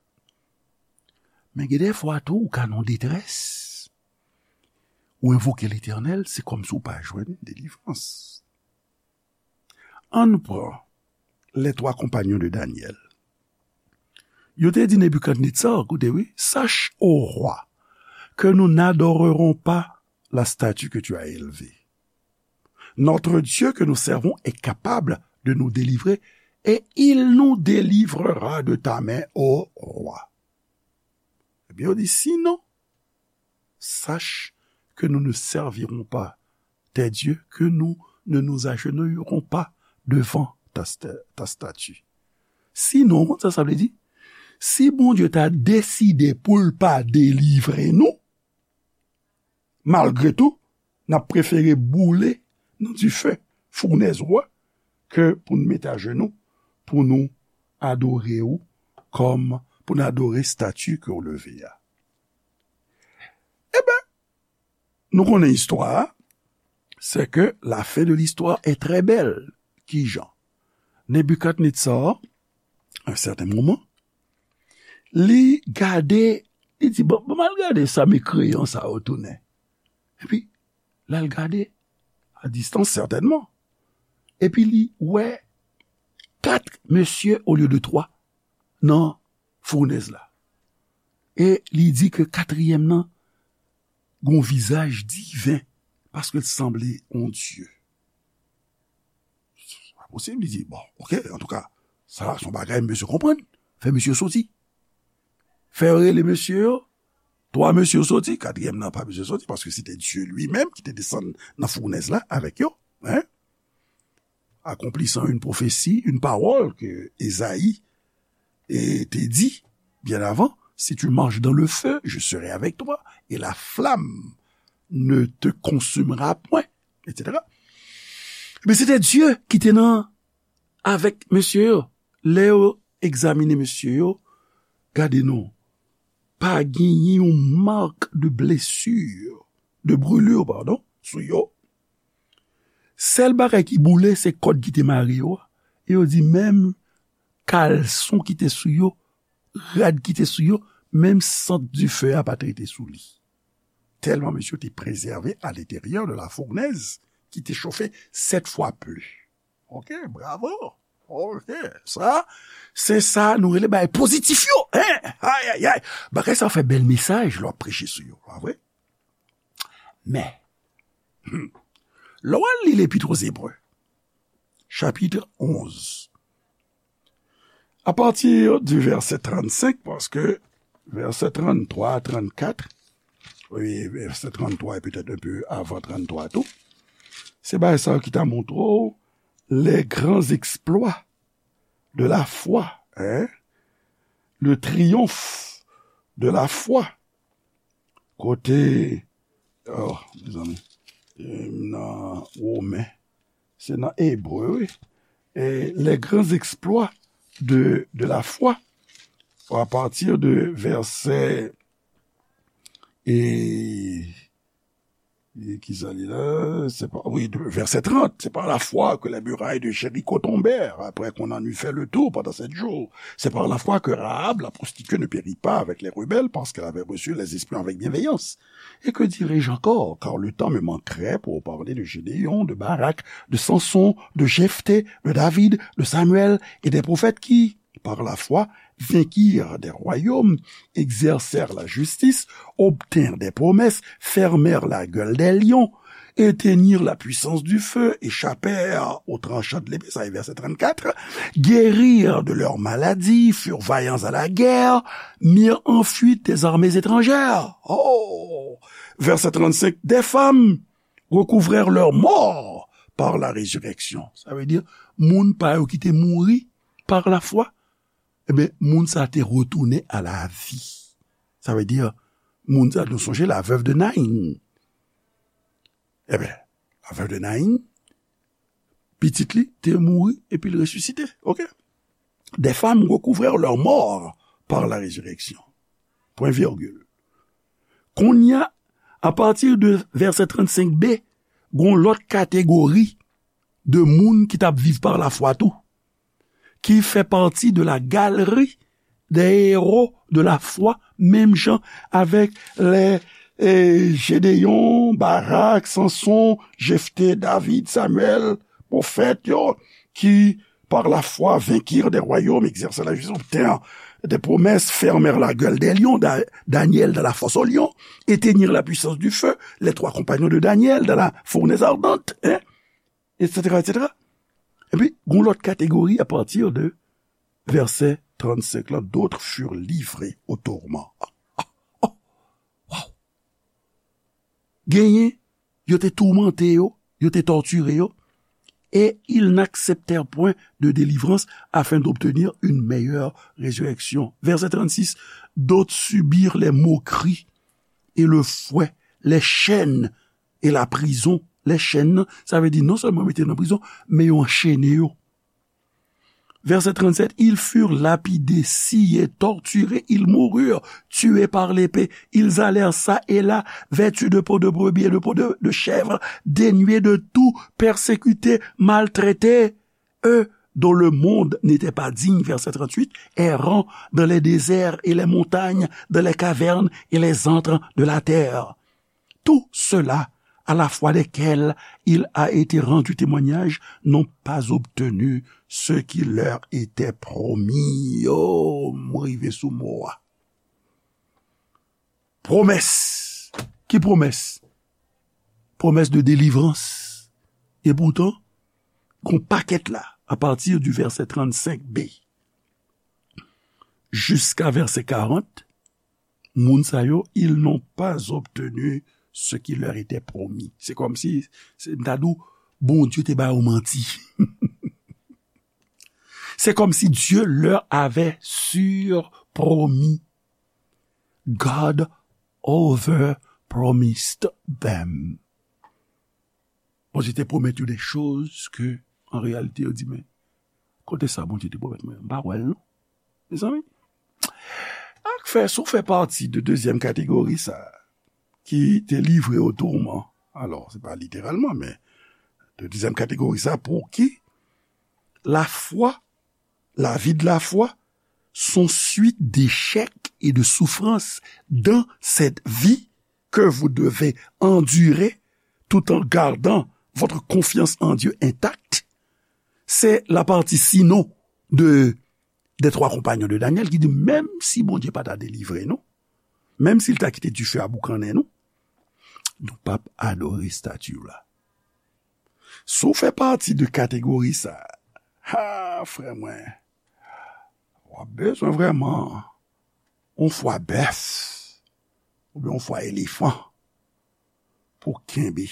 Men gen de fwa tou, ou ka nan detrès. Ou envoke Letènèl, se kòmsi ou pa jwenn delivrans. Ann pran les trois compagnons de Daniel. Yo te di Nebikadnetza, koute wi, sache, ô roi, que nous n'adorerons pas la statue que tu as élevée. Notre Dieu que nous servons est capable de nous délivrer et il nous délivrera de ta main, ô roi. Ebyen, yo di, sinon, sache que nous ne servirons pas tes dieux, que nous ne nous agenouillerons pas devant ta, sta- ta statue. Sinon, ou konn sa sa vle di? Si Bondye ta deside pou l pa delivre nou, malgre tou, n ap prefere boule nan dife founèz ou a ke pou n mete ajenou, pou nou adore ou kòm, pou n adore stati ke w leve a. Eben, nou konnen istwa a, c'est que la fin de l'histoire est très belle. Kijan? Nebikadnetsar, à un certain moment, li gade, li di, bon, bon, m al gade sa mekreyan sa yo tounen. Epi, l al gade, a distans sètènman. Epi li wè kat mesye olye de twa nan founèz la. E li di ke katriyèm nan gon vizaj diven, paske l sanble yon dye. Se pa posib, li di, bon, oke, antouka, sa se yon bagay mesye konprann. Fè mesye soti. Fè yo rele mesye yo. Twa mesye yo soti, katriyèm nan pa bezwen soti, paske se te Dye li menm ki te desann nan founèz la avèk yo. Hein? Accomplissant une prophétie, une parole que Ésaïe eh, te di, bien avant, si tu marches dans le feu, je serai avec toi, et la flamme ne te consumera point, et cetera. Men se te Dye ki te nan avèk mesye yo. Lè yo egzamine mesye yo, gade non, pa genyen yon mak de blesir, de brûlure, pardon, sou yo. Sèl bagay ki boule, se kòd ki te mare yo a. E yo di menm kalson ki te sou yo, rad ki te sou yo, menm sant dife a pa t rete sou li. Tèlman mesye te prezève à l'intérieur de la fournaise ki te chofe sèt fwa plis. Oke, bravo. Oke, sa, se sa nou rele bagay pozitif yo. Hein? Ay, ay, ay. Bagay sa fè bèl mesaj lè w ap preche sou yo, pa vre? Men, hmm, lè w al li Lepit o Zebre, chapit onz, à partir du verset trannsenk, paske vèsè tranntwa, trannkat, wi, vèsè tranntwa e petèt un peu avan tranntwa tou, se bagay sa yo ki ta montre w les grands exploits de la foi, hein? Le triomphe de la foi. Kote, oh, mezanmi, e, nan Women, se nan Ebre, wi. E, les grands exploits de, de la foi, à partir de verset, e, e ki sa li la? Se pa, wi, de, verset trente, c'est par la foi que les murailles de Jéricho tombèrent, après qu'on en eut fait le tour pendant sept jours. C'est par la foi que Rahab, la prostituée, ne périt pas avec les rebelles, parce qu'elle avait reçu les espions avec bienveillance. Et que dirais-je encore, car le temps me manquerait pour parler de Gédéon, de Barak, de Samson, de Jephthé, de David, de Samuel et des prophètes qui, par la foi, vainquirent des royaumes, exercèrent la justice, obtinrent des promesses, fermèrent la gueule des lions, éteignirent la puissance du feu, échappèrent au tranchant de l'épée, sa e vèsè trannkat, guérirent de leurs maladies, furent vaillants à la guerre, mirent en fuite des armées étrangères. Oh! Verset trente-cinq, des femmes recouvrèrent leurs morts par la résurrection. Sa vle di, moun pa yo ki te mouri par la foi, ebyen, moun sa te retounen a la vi. Sa vle di, moun sa, nou sonje la veuve de Naïn. Ebyen, la veuve de Naïn, pitit li te mouri epi l resisite. Oke? Des femmes recouvrèrent leurs morts par la résurrection. Point virgule. Kounye a, à partir de verset trannsenk b, gon lòt kategori de moun ki t ap viv par la foi tou, ki fè pati de la galerie des héros de la foi, menm jan avèk lè, e, Gédéon, Barak, Samson, Jephthé, David, Samuel, pwofèt yo, ki par la foi, vainquirent des royaumes, exercèrent la justice, obtinrent des promesses, fermèrent la gueule des lions, Da- Daniel dans la fosse aux lions, éteignirent la puissance du feu, les trois compagnons de Daniel dans la fournaise ardente, hein, et cetera, et cetera. Epi, gon lòt kategori apati de vèsè trannsenk la, d'autres furent livrés au tourment. Ah, ah, oh, wow. Genyen, yo te toumante yo, yo te tòtire yo, et ils n'acceptèrent point de délivrance afin d'obtenir une meilleure résurrection. Verset trente-six, d'autres subirent les moqueries et le fouet, les chaînes et la prison. Les chaînes, sa vle di non sèlman mete nan prizon, men yo anchene yo. Verset trente-sept, ils furent lapidés, sciés, torturés, ils moururent, tués par l'épée. Ils allèrent çà et là, vêtus de peau de brebis et de peau de, de chèvre, dénués de tout, persécutés, maltraités. Eux, dont le monde n'était pas digne, verset trente-huit, errant dans les déserts et les montagnes, dans les cavernes et les antres de la terre. Tous ceux-là, à la foi desquels il a été rendu témoignage, n'ont pas obtenu ce qui leur était promis. Oh, m rive sou mo a. Pwomès. Ki pwomès? Pwomès de delivrans. E poutan, gon pakèt la, apati di vèsè trannsenk b jiska vèsè karant, moun sa yo, ils n'ont pas obtenu ce qui leur était promis. Se kòmsi, se, m ta di w, Bondye te ba yo manti. C'est comme si Dieu leur avait surpromis. God overpromised them. Bondye te pwomèt yo de choz ke, an reyalite, yo di, men, kote sa Bondye te pwomèt mwen? M pa wè l, non. Mezanmi, ak fè, si w fè pati de dezyèm kategori sa, ki te livre o tourman, alò, se pa literalman, men de dezyèm kategori sa, pou ki lafwa, la vie de la foi, sont suite d'échecs et de souffrances dans cette vie que vous devez endurer tout en gardant votre confiance en Dieu intacte, c'est la partie sinon de, des trois compagnons de Daniel ki di, menm si Bondye pa ta delivre nou, menm si l ta kite dife a boukannen nou, nou p ap adore estati la. Si w fè pati de kategori sa, ha, frè mwen, w ap bezwen vrèman yon fwa bèf oubyen yon fwa elefan pou w kenbe.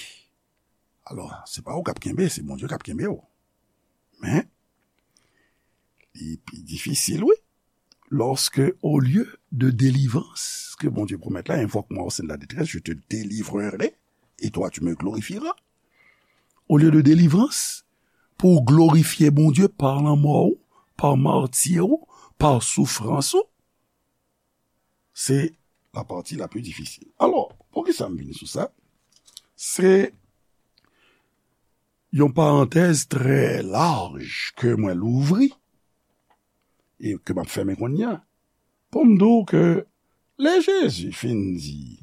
Alò, se pa ou k ap kenbe, se Bondye k ap kenbe w. Men, li pi difisil, wi. Lorsque, au lieu de délivrance ke Bondye pwomèt la, invoque-moi au sein de la détresse, je te délivrerai, et toi tu me glorifieras. Olye de delivrans, pou w glorifye Bondye pa lanmò w, pa mati w, pa soufrans ou, se la pati la pli difisil. Alò, poukisa m vin sou sa? Se yon parantèz trè laj ke mwen louvri e ke m ap fèmen kounye a, pou m di w ke lè Jezi fin di,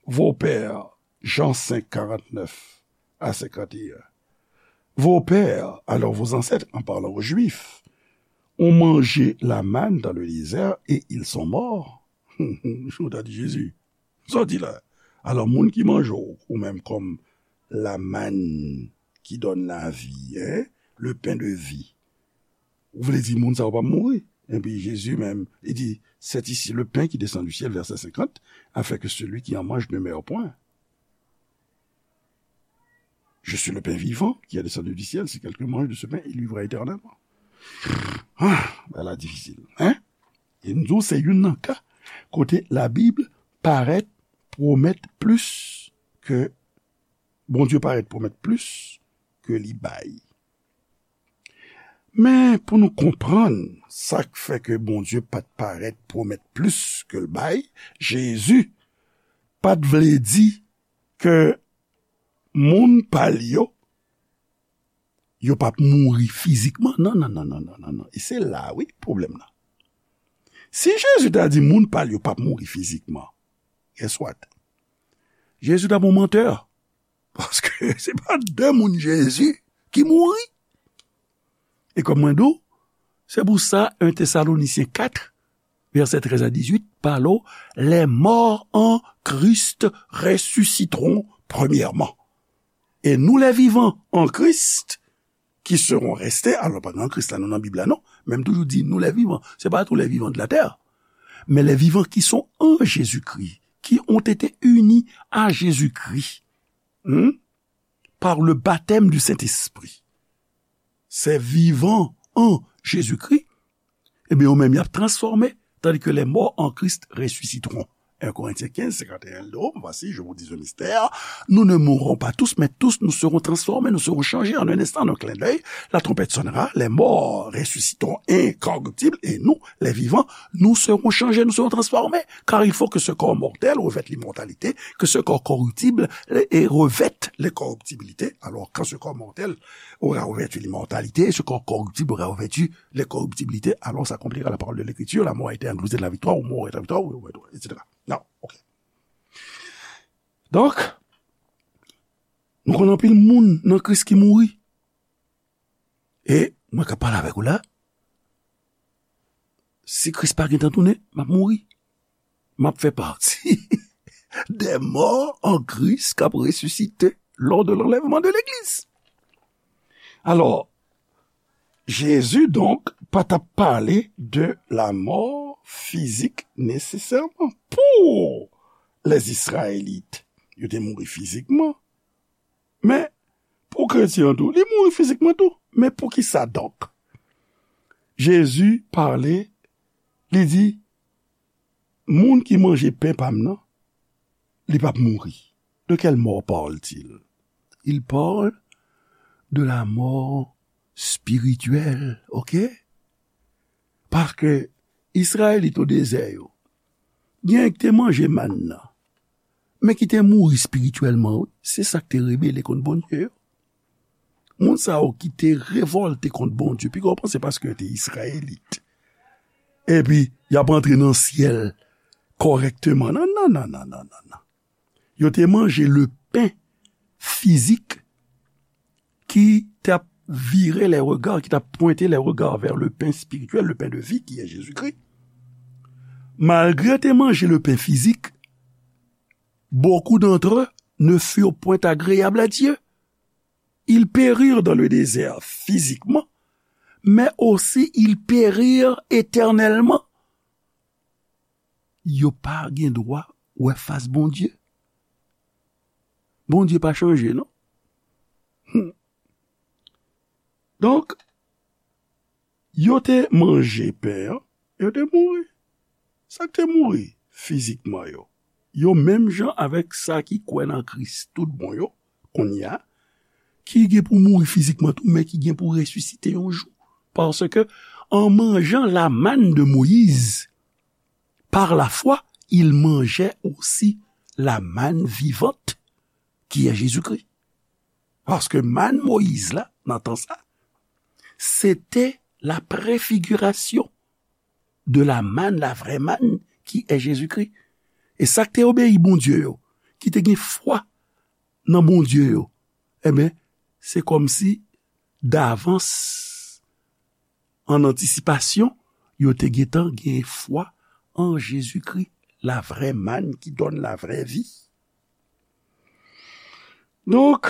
Vos pères, Jean cinq, quarante-neuf à cinquante et un, Vos pères, alors vos ancêtres, en parlant aux Juifs, ont mangé la manne dans le désert et ils sont morts. Ou ta di Jezi, sa w di la? Alò, moun ki manje w, ou menm kòm la manne qui donne la vie, hein, le pain de vie, ou vle di moun sa yo p ap mouri? Epi Jezi menm, li di, c'est ici le pain qui descend du ciel, verset cinquante, afin que celui qui en mange ne meure point. Je suis le pain vivant qui est descendu du ciel. Si quelqu'un mange de ce pain, il vivra éternellement. Ah, bagay la difisil, hein? E m di w, se youn nan ka kote Labib parèt pwomèt plis ke, Bondye parèt pwomèt plis ke li bay. Men pou nou konprann sa k fè ke Bondye pa t parèt pwomèt plis ke l bay, Jezi pa t vle di ke moun pa l yo, yo p ap mouri fizikman. Non, non, non, non, non, non, non. E se la, wi, pwoblèm nan. Si Jezi ta di moun pa l yo p ap mouri fizikman, guess what? Jezi t ap yon mantè. Paske se pa de moun Jezi ki mouri. E kòm mwen di w, se pou sa en Tesalonisyen kat, vèsè trèz a dizuit, pale w, les morts en Christ ressusciteront premièrement. Et nous les vivants en Christ, qui serons restés, alò pa gen an Kris la, nou nan Bib la, non, men m toujou di nous les vivants, se pa tous les vivants de la terre, mais les vivants qui sont en Jésus-Christ, qui ont été unis à Jésus-Christ, hmm, par le baptême du Saint-Esprit. Ces vivants en Jésus-Christ, ebyen, yo menm, y ap transfòme, tandis que les morts en Christ ressusciteront. En Corinthiens quinze, cinquante et un, il dit, oh, voici, je vous dis un mystère, nous ne mourrons pas tous, mais tous nous serons transformés, nous serons changés en un instant, en un clin d'œil, la trompette sonnera, les morts ressusciteront incorruptibles, et nous, les vivants, nous serons changés, nous serons transformés, car il faut que ce corps mortel revête l'immortalité, que ce corps corruptible et revête l'incorruptibilité. Alors, quand ce corps mortel aura revêtu l'immortalité, ce corps corruptible aura revêtu l'incorruptibilité, alors s'accomplira la parole de l'Écriture, la mort a été engloutée dans la victoire, ou mort est la victoire, ou, ou, et cetera. Non, ok. Donk, nou konn anpil moun nan Kris ki mouri. E mwen k ap pale avèk ou la, si Kris pa gentan tounen, m ap mouri. M ap fè pati des morts en Christ k ap resisite lors de l'enlèvement de l'église. Alò, Jezi, donk, pa t ap pale de la mò fizik nesesèman pou les Israélites. Yo te mouri fizikman, men pou kretyen an tou, li mouri fizikman tou. Men poukisa donk? Jezi pale, li di, moun ki manje pen pa m nan, li p ap mouri. De quelle mort parle-t-il? Il parle de la mort spirituelle, ok? Paske Izrayelit o dezè yo, gen ki te manje mann nan, men ki te mouri espirityèlman, wi. Se sa k te rebele kont Bondye yo. Moun sa yo ki te revòlte kont Bondye, piga w panse paske yo te Izrayelit, epi y ap antre nan syèl kòrèkteman. Non, non, non, non, non, non, non. Yo te manje le pen fizik ki t ap vire les regards, qui t'a pointé les regards vers le pain spirituel, le pain de vie qui est Jésus-Christ. Malgré yo te manje le pain physique, beaucoup d'entre eux ne furent point agréables à Dieu. Ils périrent dans le désert physiquement, mais aussi ils périrent éternellement. Yo pa gen dwa wè fas Bondye. Bondye pa chanje, non. Hmm. Donk, yo te manje pen an, yo te mouri. Sa k te mouri fizikman yo, yo menm jan avèk sa ki kwè nan Kris tout bon yo, kounye a, ki gen pou mouri fizikman tou, men ki gen pou resisite yon jou. Paske, en mangeant la manne de Moïse, par la foi, ils mangeaient aussi la manne vivante, qui est Jésus-Christ. Paske mann Moyiz la, nan tan sa, se te la préfiguration de la manne, la vraie manne, qui est Jésus-Christ. E sa k te obeyi Bondye yo, ki te gen fwa nan Bondye yo, enben, se kòmsi davans, an antisipasyon, yo te gentan gen fwa an Jezikri, la vraie manne qui donne la vraie vie. Donk,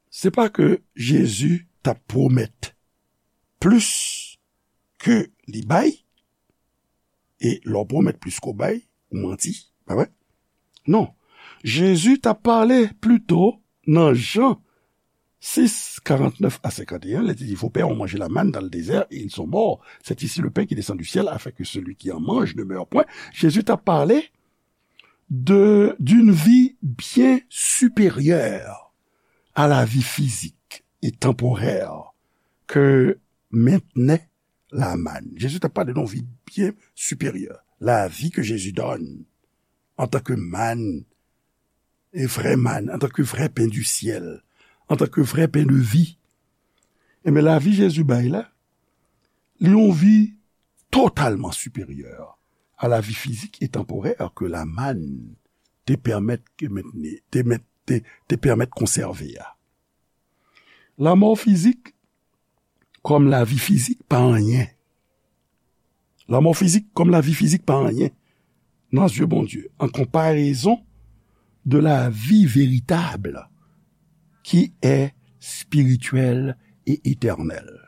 se pa ke Jezi t ap pwomèt plis ke li bay, e lè w pwomèt plis ke w bay, ou manti, pa vre? Non. Jezi t ap pale pito nan Jan sis, karantnèf a senkanteyen, lè li di, vos pères ont mangé la manne dans le désert et ils sont morts. C'est ici le pain qui descend du ciel afin que celui qui en mange ne meure point. Jezi t ap pale de, d'une vie bien supérieure à la vie physique et temporaire que maintenait la manne. Jezi t ap pale de yon vi byen siperyè. La vie que Jésus donne en tant que manne, e vrè manne, en tant que vrai pain du ciel, en tant que vrai pain de vie. Enben, lavi Jezi bay la, li yon vi totalman siperyè a lavi fizik e tanporè ke la manne te pèmèt ke mentni, te mèt, te, te pèmèt konsève a. Lanmò fizik kòm lavi fizik pa anyen. Lanmò fizik kòm lavi fizik pa anyen nan zye Bondye, an konparezon de la vie véritable qui est spirituelle et éternelle.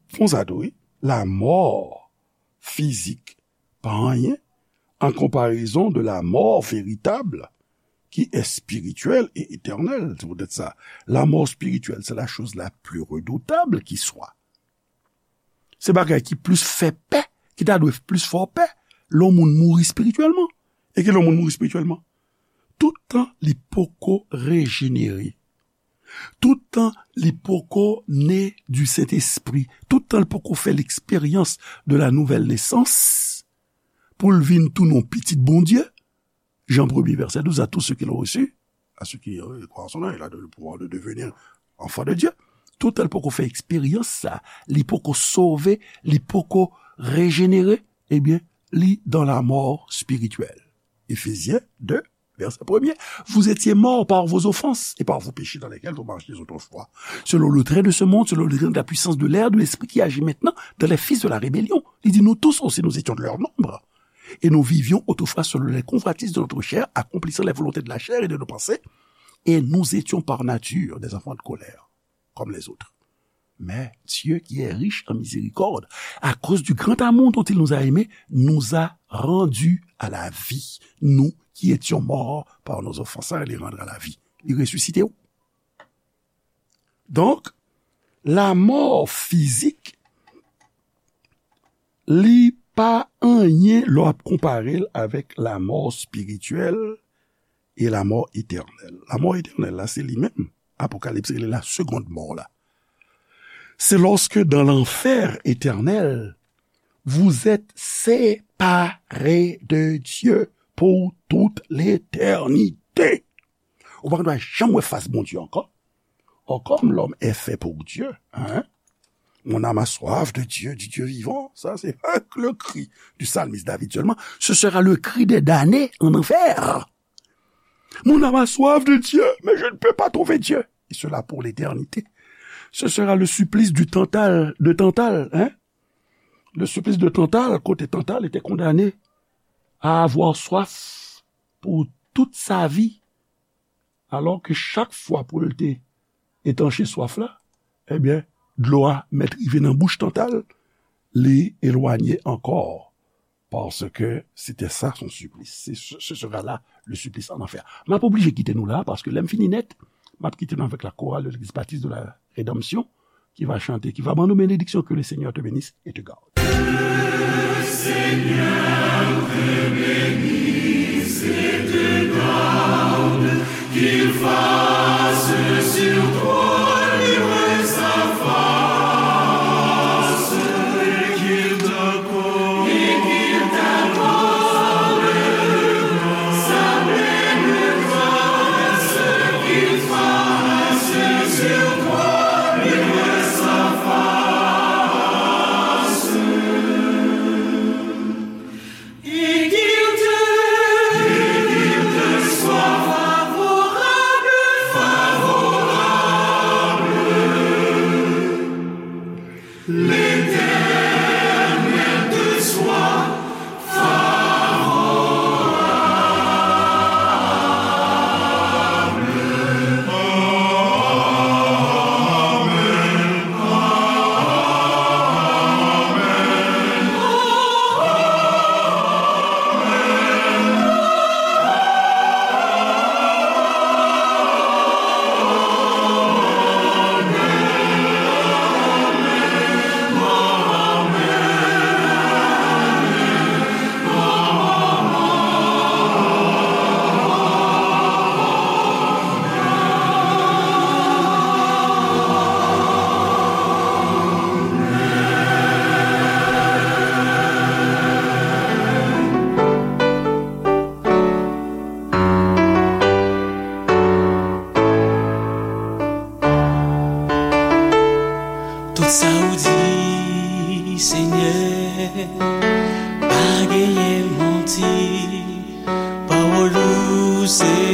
Fon sa tou, wi. Lanmò fizik pa anyen en comparaison de la mort véritable qui est spirituelle et éternelle. C'est peut-être ça. La mort spirituelle, c'est la chose la plus redoutable qui soit. Se bagay ki plis fè pè, ki ta dwe plis fè w pè, lè yon moun mouri espirityèlman. E ki lè yon moun mouri espirityèlman? Tout tan li poko rejenere. Tout tan li poko ne du Saint-Esprit. Tout tan li poko fè l'expérience de la nouvelle naissance, pou l vin tounen yon pitit Bondye, Jan premye vèsè douz, à tous ceux qui l'ont reçu, à ceux qui euh, croient en son nom, il a donné le pouvoir de devenir enfants de Dieu. Tout tan l poko fè eksperyans sa, li poko sove, li poko rejenere, ebyen, li dans la mort spirituelle. Éphésiens deux, verset premier. Vous étiez morts par vos offenses et par vos péchés dans lesquels vous marchiez autrefois, selon le train de ce monde, selon le train de la puissance de l'air, de l'esprit qui agit maintenant dans les fils de la rébellion. Li di, nous tous aussi, nous étions de leur nombre. Et nous vivions autrefois selon les convoitises de notre chair, accomplissant les volontés de la chair et de nos pensées. Et nous étions par nature des enfants de colère, comme les autres. Mais Dieu, qui est riche en miséricorde, à cause du grand amour dont il nous a aimés, nous a rendus à la vie. Nous qui étions morts par nos offenses, sa li rendre à la vie. Li resisite w. Donk, lanmò fizik, li pa anyen lè w ap konpare l avèk lanmò espirityèl e lanmò etènèl. Lanmò etènèl la, se li menm. Apokalips rele la seconde mort la. C'est lorsque dans l'enfer éternel, vous êtes séparés de Dieu pour toute l'éternité. Ou pa dwe janm wè fas Bondye ankò. Or, comme l'homme est fait pour Dieu, hein? Mon âme a soif de Dieu, du Dieu vivant. Ça, c'est le cri du psalmiste David seulement. Ce sera le cri des damnés en enfer. Mon âme a soif de Dieu, mais je ne peux pas trouver Dieu. Et cela pour l'éternité. Ce sera le supplice du Tantale, de Tantale, hein? Le supplice de Tantale, kote Tantale était condamné à avoir soif pour toute sa vie. Alò ke chak fwa pou l te etanche swaf la, ebyen, dlo a mèt rive nan bouch Tantale, li elwanye ankò, parce que c'était ça son supplice. C'est, ce, ce sera là le supplice en enfer. M ap oblije kite nou la, paske lè m fini nèt, m ap kite nou avèk la chorale de l'église baptiste de la rédemption, qui va chanter, qui va ban nou bénédiction, que le Seigneur te bénisse et te garde. Tout sa ou di, Senyè, pa genyen manti. Pawòl ou se